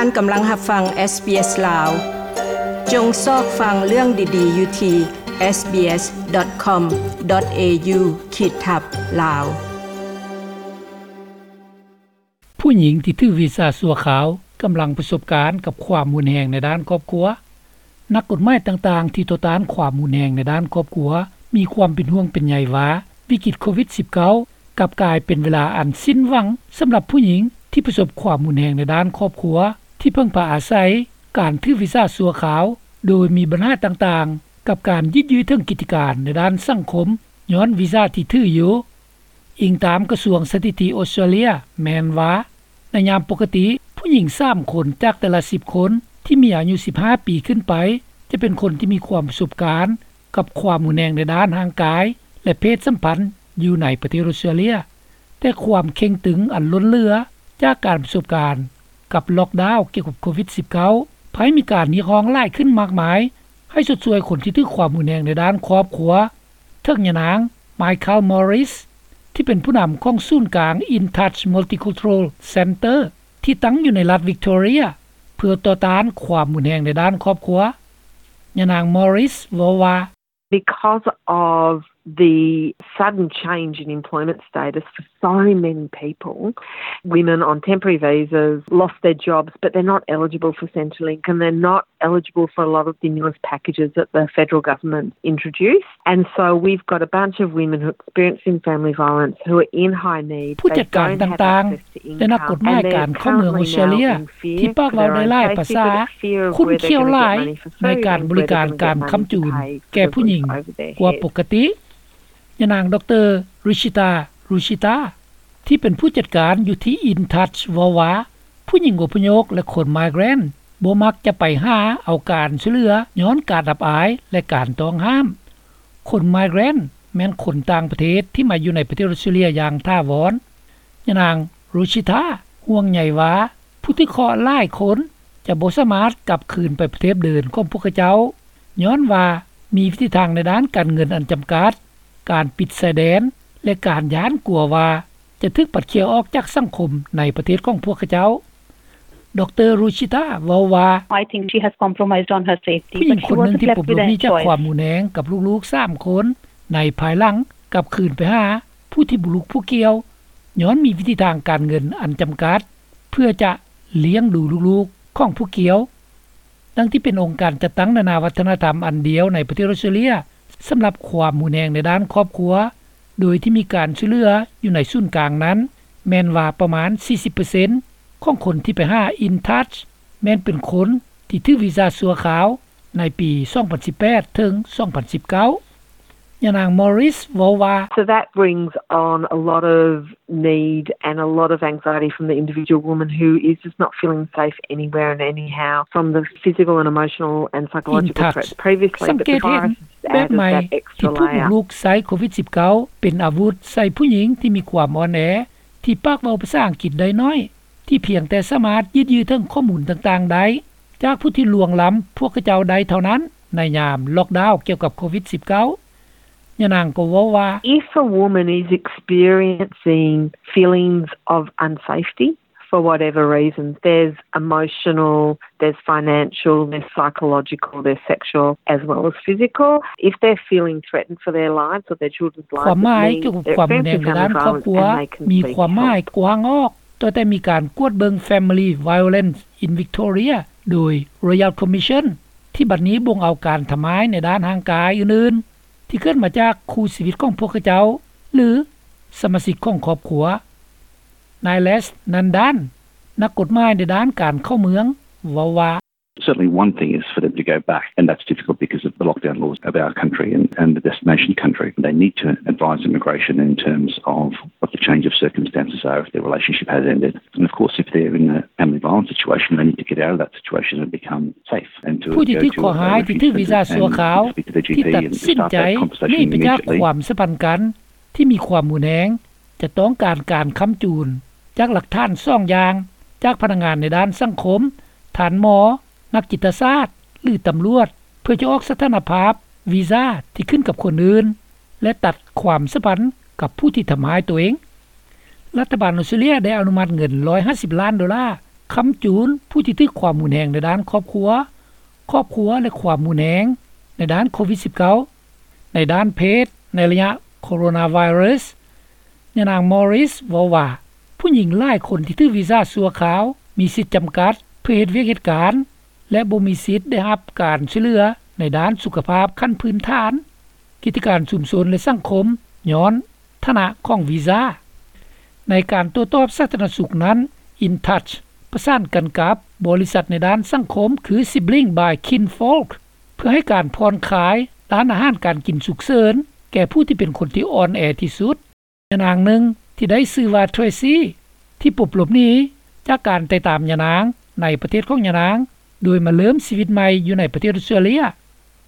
ທ່ານກຳລັງຮັບຟັງ SBS ລາວ. ຈົ່ງຊອກຟັງເລື່ອງດີໆຢູ່ທີ່ SBS.com.au ຂີດທັບ ລາວ. ຜູ້ຍິງທີ່ຖືກວີຊາຊົ່ວຄາວກຳລັງປະສົບການກັບຄວາມຮຸນແຮງໃນດ້ານຄອບຄົວ. ນັກກົດໝາຍຕ່າງໆທີ່ຕໍ່ຕ້ານຄວາມຮຸນແຮງໃນດ້ານຄອບຄົວ ມີຄວາມເປັນຫ່ວງເປັນໃຍວ່າ ວິກິດໂຄວິດ-19 ກັບກາຍເປັນເວລາອັນສິ້ນຫວັງສຳລັບຜູ້ຍິງທີ່ປະສົບຄວາມຮຸນແຮງໃນດ້ານຄອບຄົວ ທີ່ເພິ່ງພາອາໄສການຖືກວີຊາຊົ່ວຄາວ ໂດຍມີບັນຫາຕ່າງໆ ກັບການຍືດເຖິງກິດຈະການໃນດ້ານສັງຄົມ ຍ້ອນວີຊາທີ່ຖືຢູ່. ອີງຕາມກະຊວງສະຖິຕິອອສເຕຣເລຍ ແມ່ນວ່າ ໃນຍາມປົກກະຕິ ຜູ້ຍິງສາມຄົນຈາກແຕ່ລະສິບຄົນທີ່ມີອາຍຸສິບຫ້າປີຂຶ້ນໄປ ຈະເປັນຄົນທີ່ມີຄວາມປະສົບການກັບຄວາມຮຸນແຮງໃນດ້ານຮ່າງກາຍ ແລະ ເພດສຳພັນຢູ່ໃນປະເທດອອສເຕຣເລຍ. ແຕ່ຄວາມເຄັ່ງຕຶງອັນລົ້ນເຫຼືອຈາກການປະສົບການກັບລັອກດາວກ່ຽວກັບໂຄວິດ-19 ພາຍມີການຮຽກຮ້ອງຫຼາຍຂຶ້ນມາກມາຍ ໃຫ້ຊົດຊ່ວຍຄົນທີ່ຖືກຄວາມຮຸນແຮງໃນດ້ານຄອບຄົວ. ເຖິງຍານາງ Michael Morris ທີ່ເປັນຜູ້ນຳຂອງສູນກາງ In Touch Multicultural Centre ທີ່ຕັ້ງຢູ່ໃນລັດ Victoria ເພື່ອຕໍ່ຕ້ານຄວາມຮຸນແຮງໃນດ້ານຄອບຄົວ. ຍານາງ Morris ເວົ້າວ່າ Because of the sudden change in employment status for so many people, women on temporary visas lost their jobs, but they're not eligible for Centrelink, and they're not eligible for a lot of stimulus packages that the federal government introduced. And so we've got a bunch of women who are experiencing family violence who are in high need. ຜູ້ຈັດການຕ່າງໆ ແລະ ນັກກົດໝາຍການເຂົ້າເມືອງອອສເຕຣເລຍ ທີ່ປາກເວົ້າໄດ້ຫຼາຍພາສາ ຂຸ້ນຂ້ຽວຫຼາຍໃນການບໍລິການການຄ້ຳຈູນແກ່ຜູ້ຍິງກວ່າປົກກະຕິ. ຍານາງ ດຣ. Ruchita Ruchita ທີ່ເປັນຜູ້ຈັດການຢູ່ທີ່ In Touch ເວົ້າວ່າ ຜູ້ຍິງອົບພະຍົບ ແລະ ຄົນ migrant ບໍ່ມັກຈະໄປຫາເອົາການຊ່ວຍເຫຼືອ ຍ້ອນການອັບອາຍ ແລະ ການຕ້ອງຫ້າມ. ຄົນ migrant ແມ່ນຄົນຕ່າງປະເທດທີ່ມາຢູ່ໃນປະເທດອອສເຕຣເລຍຢ່າງຖາວອນ. ຍານາງ Ruchita ຫ່ວງໃຍວ່າ ຜູ້ຖືກເຄາະຫຼາຍຄົນຈະບໍ່ສາມາດກັບຄືນໄປປະເທດເດີມຂອງພວກເຂົາເຈົ້າ ຍ້ອນວ່າມີວິທີທາງໃນດ້ານການເງິນອັນຈຳກັດ, ການປິດຊາຍແດນ ແລະ ການຢ້ານກົວວ່າຈະຖືກປັດເຂ່ຍອອກຈາກສັງຄົມໃນປະເທດຂອງພວກເຂົາເຈົ້າ. ດຣ. Ruchita ເວົ້າວ່າ I think she has compromised on her safety, ຜູ້ຍິງຄົນໜຶ່ງທີ່ປົມລຸກໜີຈາກຄວາມຮຸນແຮງກັບລູກໆສາມຄົນ ໃນພາຍຫຼັງກັບຄືນໄປຫາຜູ້ທີ່ບໍ່ລຸກຜູ້ກ່ຽວ ຍ້ອນມີວິທີທາງການເງິນອັນຈຳກັດ ເພື່ອຈະລ້ຽງດູລູກໆຂອງຜູ້ກ່ຽວ. ດັ່ງທີ່ເປັນອົງການຈັດຕັ້ງນານາວັດທະນະທຳອັນດຽວໃນປະເທດອອສເຕຣເລຍ ສຳລັບຄວາມຮຸນແຮງໃນດ້ານຄອບຄົວ ໂດຍທີ່ມີການຊ່ວຍເຫຼືອຢູ່ໃນສູນກາງນັ້ນ ແມ່ນວ່າປະມານສີ່ສິບເປີເຊັນຂອງຄົນທີ່ໄປຫາ In Touch ແມ່ນເປັນຄົນທີ່ຖືກວີຊາຊົ່ວຄາວໃນປີສອງພັນສິບແປດເຖິງສອງພັນສິບເກົ້າ. ຍານາງ Morris ເວົ້າວ່າ So that brings on a lot of need and a lot of anxiety from the individual woman who is just not feeling safe anywhere and anyhow from the physical and emotional and psychological threats previously. ສັງເກດເຫັນແບບໃໝ່ທີ່ຜູ້ບຸກລຸກໃຊ້ໂຄວິດ-19 ເປັນອາວຸດໃສ່ຜູ້ຍິງທີ່ມີຄວາມອ່ອນແອ ທີ່ປາກເວົ້າພາສາອັງກິດໄດ້ໜ້ອຍ ທີ່ພຽງແຕ່ສາມາດຍືດເຖິງຂໍ້ມູນຕ່າງໆໄດ້ ຈາກຜູ້ທີ່ລ່ວງລ້ຳພວກເຂົາເຈົ້າໄດ້ເທົ່ານັ້ນ ໃນຍາມລັອກດາວກ່ຽວກັບໂຄວິດ-19. ຍານາງກໍເວົ້າວ່າ If a woman is experiencing feelings of unsafety for whatever reason, there's emotional, there's financial, there's psychological, there's sexual as well as physical. If they're feeling threatened for their lives or their children's lives, ຄວາມໝາຍກ່ຽວກັບຄວາມຮຸນແຮງໃນດ້ານຄອບຄົວ ມີຄວາມໝາຍກວ້າງອອກ ຕັ້ງແຕ່ມີການກວດເບິ່ງ Family Violence in Victoria ໂດຍ Royal Commission ທີ່ບັດນີ້ບົ່ງເອົາການທຳຮ້າຍໃນດ້ານຮ່າງກາຍອື່ນໆ ທີ່ເກີດມາຈາກຄູ່ຊີວິດຂອງພວກເຂົາເຈົ້າ ຫຼື ສະມາຊິກຂອງຄອບຄົວ. ນາຍ Les Nandan ນັກກົດໝາຍໃນດ້ານການເຂົ້າເມືອງ ເວົ້າວ່າ Certainly one thing is for them to go back, and that's difficult because of the lockdown laws of our country and, and the destination country. They need to advise immigration in terms of what the change of circumstances are if their relationship has ended. And of course, if they're in a family violence situation, they need to get out of that situation and become safe and to ຜູ້ທີ່ຖືກເຄາະຮ້າຍທີ່ຖືກວີຊາຊົ່ວຄາວ ທີ່ຕັດສິນໃຈໜີໄປຈາກຄວາມສຳພັນກັນທີ່ມີຄວາມຮຸນແຮງ ຈະຕ້ອງການການຄ້ຳຈູນຈາກຫຼັກຖານສອງຢ່າງ ຈາກພະນັກງານໃນດ້ານສັງຄົມ, ທ່ານໝໍ, ນັກຈິດຕະສາດ ຫຼື ຕຳຫຼວດ ເພື່ອຈະອອກສະຖານະພາບວີຊາທີ່ຂຶ້ນກັບຄົນອື່ນ ແລະ ຕັດຄວາມສຳພັນກັບຜູ້ທີ່ທຳຮ້າຍຕົວເອງ. ລັດຖະບານອອສເຕຣເລຍໄດ້ອະນຸມັດເງິນຮ້ອຍຫ້າສິບລ້ານໂດລາ ຄ້ຳຈູນຜູ້ທີ່ຖືກຄວາມຮຸນແຮງໃນດ້ານຄອບຄົວ, ຄອບຄົວ ແລະ ຄວາມຮຸນແຮງໃນດ້ານໂຄວິດສິບເກົ້າ. ໃນດ້ານເພດ, ໃນໄລຍະໂຄໂຣນາໄວຣັສ, ຍານາງ Morris ເວົ້າວ່າ ຜູ້ຍິງຫຼາຍຄົນທີ່ຖືກວີຊາຊົ່ວຄາວມີສິດຈຳກັດເພື່ອເຮັດວຽກເຮັດການ ແລະ ບໍ່ມີສິດໄດ້ຮັບການຊ່ວຍເຫຼືອໃນດ້ານສຸຂະພາບຂັ້ນພື້ນຖານ, ກິດຈະການຊຸມຊົນ ແລະ ສັງຄົມ ຍ້ອນຖານະຂອງວີຊາ. ໃນການໂຕ້ຕອບສາທາລະນະສຸກນັ້ນ, InTouch ປະສານກັນກັບບໍລິສັດໃນດ້ານສັງຄົມ ຄື Sibling by Kinfolk ເພື່ອໃຫ້ການຜ່ອນຄາຍດ້ານອາຫານການກິນສຸກເສີນແກ່ຜູ້ທີ່ເປັນຄົນທີ່ອ່ອນແອທີ່ສຸດ. ຍານາງໜຶ່ງທີ່ໄດ້ຊື່ວ່າ Tracy ທີ່ປົບຫຼົບໜີຈາກການໄຕ່ຕາມຍານາງໃນປະເທດຂອງຍານາງ ໂດຍມາເລີ່ມຊີວິດໃໝ່ຢູ່ໃນປະເທດອອສເຕຣເລຍ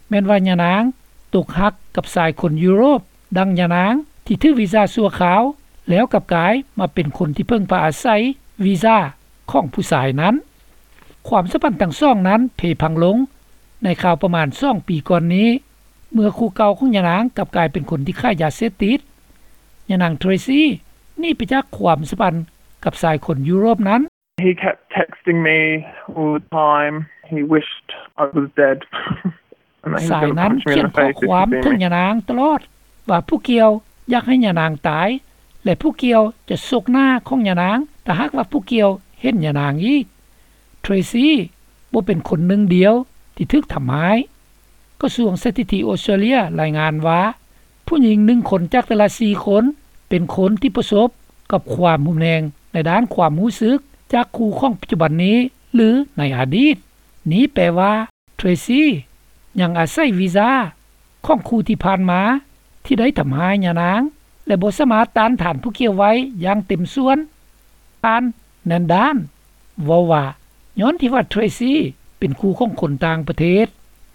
ແມ່ນວ່າຍານາງຕົກຮັກກັບຊາຍຄົນຢູໂຣບ ດັ່ງຍານາງທີ່ຖືກວີຊາຊົ່ວຄາວ ແລ້ວກັບກາຍມາເປັນຄົນທີ່ເພິ່ງພາອາໄສວີຊາຂອງຜູ້ຊາຍນັ້ນ. ຄວາມສຳພັນທັງສອງນັ້ນເພພັງລົງໃນຄາວປະມານສອງປີກ່ອນນີ້ ເມື່ອຄູ່ເກົ່າຂອງຍານາງກັບກາຍເປັນຄົນທີ່ຂາຍຢາເສບຕິດ. ຍານາງ Tracy ໜີໄປຈາກຄວາມສຳພັນກັບຊາຍຄົນຢູໂຣບນັ້ນ. He kept texting me all the time. He wished I was dead. ຊາຍນັ້ນຂຽນຂໍ້ຄວາມເຖິງຍານາງຕະຫຼອດວ່າຜູ້ກ່ຽວຢາກໃຫ້ຍານາງຕາຍ ແລະ ຜູ້ກ່ຽວຈະຊົກໜ້າຂອງຍານາງ ຖ້າຫາກວ່າຜູ້ກ່ຽວເຫັນຍານາງອີກ. Tracy ບໍ່ເປັນຄົນໜຶ່ງດຽວທີ່ຖືກທຳຮ້າຍ. ກະຊວງສະຖິຕິອອສເຕຣເລຍລາຍງານວ່າ ຜູ້ຍິງໜຶ່ງຄົນຈາກແຕ່ລະສີ່ຄົນເປັນຄົນທີ່ປະສົບກັບຄວາມຮຸນແຮງໃນດ້ານຄວາມຮູ້ສຶກຈາກຄູ່ຂອງປັດຈຸບັນນີ້ ຫຼື ໃນອະດີດ. ນີ້ແປວ່າ Tracy ຍັງອາໄສວີຊາຂອງຄູ່ທີ່ຜ່ານມາທີ່ໄດ້ທຳຮ້າຍຍານາງ ແລະ ບໍ່ສາມາດຕ້ານທານຜູ້ກ່ຽວໄວ້ຢ່າງເຕັມສ່ວນ. ທ່ານ Nandan ເວົ້າວ່າ ຍ້ອນທີ່ວ່າ Tracy ເປັນຄູ່ຂອງຄົນຕ່າງປະເທດ,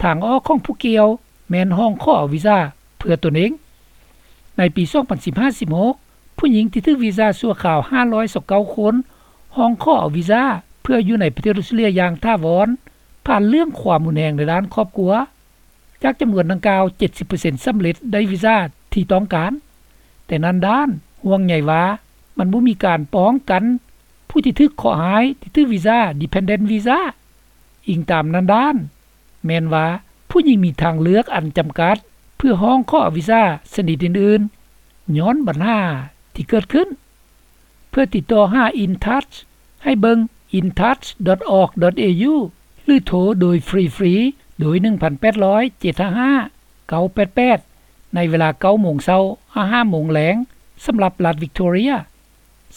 ທາງອອກຂອງຜູ້ກ່ຽວແມ່ນຮ້ອງຂໍເອົາວີຊາເພື່ອຕົນເອງ. ໃນປີສອງພັນສິບຫ້າ ສິບຫົກ ຜູ້ຍິງທີ່ຖືກວີຊາຊົ່ວຄາວຫ້າຮ້ອຍຊາວເກົ້າຄົນ ຮ້ອງຂໍເອົາວີຊາເພື່ອຢູ່ໃນປະເທດອອສເຕຣເລຍຢ່າງຖາວອນ ຜ່ານເລື່ອງຄວາມຮຸນແຮງໃນດ້ານຄອບຄົວ. ຈາກຈຳນວນດັ່ງກ່າວ ເຈັດສິບເປີເຊັນສຳເລັດໄດ້ວີຊາທີ່ຕ້ອງການ. ແຕ່ Nandan ຫ່ວງໃຍວ່າ ມັນບໍ່ມີການປ້ອງກັນຜູ້ທີ່ຖືກເຄາະຮ້າຍທີ່ຖືກວີຊາ Dependent Visa. ອີງຕາມ Nandan ແມ່ນວ່າ ຜູ້ຍິງມີທາງເລືອກອັນຈຳກັດເພື່ອຮ້ອງຂໍເອົາວີຊາຊະນິດອື່ນໆ ຍ້ອນບັນຫາທີ່ເກີດຂຶ້ນ. ເພື່ອຕິດຕໍ່ຫາ InTouch ໃຫ້ເບິ່ງ intouch.org.au ຫຼື ໂທໂດຍຟຣີໆ ໂດຍ ໜຶ່ງພັນແປດຮ້ອຍ ເຈັດຫ້າຫ້າ ເກົ້າແປດແປດ ໃນເວລາ ເກົ້າໂມງເຊົ້າ ຫາ ຫ້າໂມງແລງ ສຳລັບລັດ Victoria.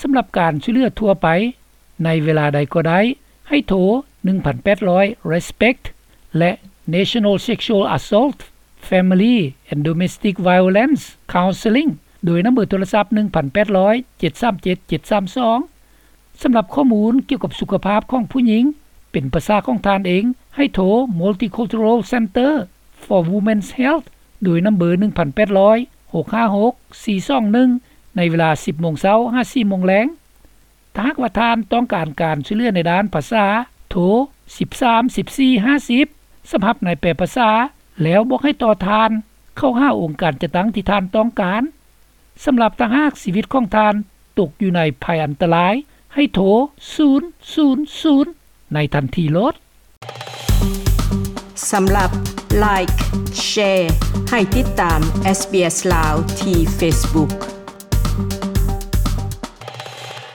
ສຳລັບການຊ່ວຍເຫຼືອທົ່ວໄປໃນເວລາໃດກໍໄດ້ ໃຫ້ໂທ ໜຶ່ງພັນແປດຮ້ອຍ RESPECT ແລະ National Sexual Assault, Family and Domestic Violence Counselling ໂດຍນຳເບີໂທລະສັບ ໜຶ່ງພັນແປດຮ້ອຍ ເຈັດສາມເຈັດ ເຈັດສາມສອງ. ສຳລັບຂໍ້ມູນກ່ຽວກັບສຸຂະພາບຂອງຜູ້ຍິງເປັນພາສາຂອງທ່ານເອງ ໃຫ້ໂທ Multicultural Centre for Women's Health ໂດຍນຳເບີ ໜຶ່ງພັນແປດຮ້ອຍ ຫົກຫ້າຫົກ ສີ່ສອງໜຶ່ງ ໃນເວລາ ສິບໂມງເຊົ້າ ຫາ ສີ່ໂມງແລງ. ຖ້າຫາກວ່າທ່ານຕ້ອງການການຊ່ວຍເຫຼືອໃນດ້ານພາສາ, ໂທ ສິບສາມ ສິບສີ່ ຫ້າສິບ ສຳລັບນາຍແປພາສາ ແລ້ວບອກໃຫ້ຕໍ່ທ່ານເຂົ້າຫາອົງການຈັດຕັ້ງທີ່ທ່ານຕ້ອງການ. ສຳລັບຖ້າຫາກຊີວິດຂອງທ່ານຕົກຢູ່ໃນໄພອັນຕະລາຍ, ໃຫ້ໂທ ສູນສູນສູນ ໃນທັນທີໂລດ. ສຳລັບ Like, Share ໃຫ້ຕິດຕາມ SBS ລາວ ທີ່ Facebook.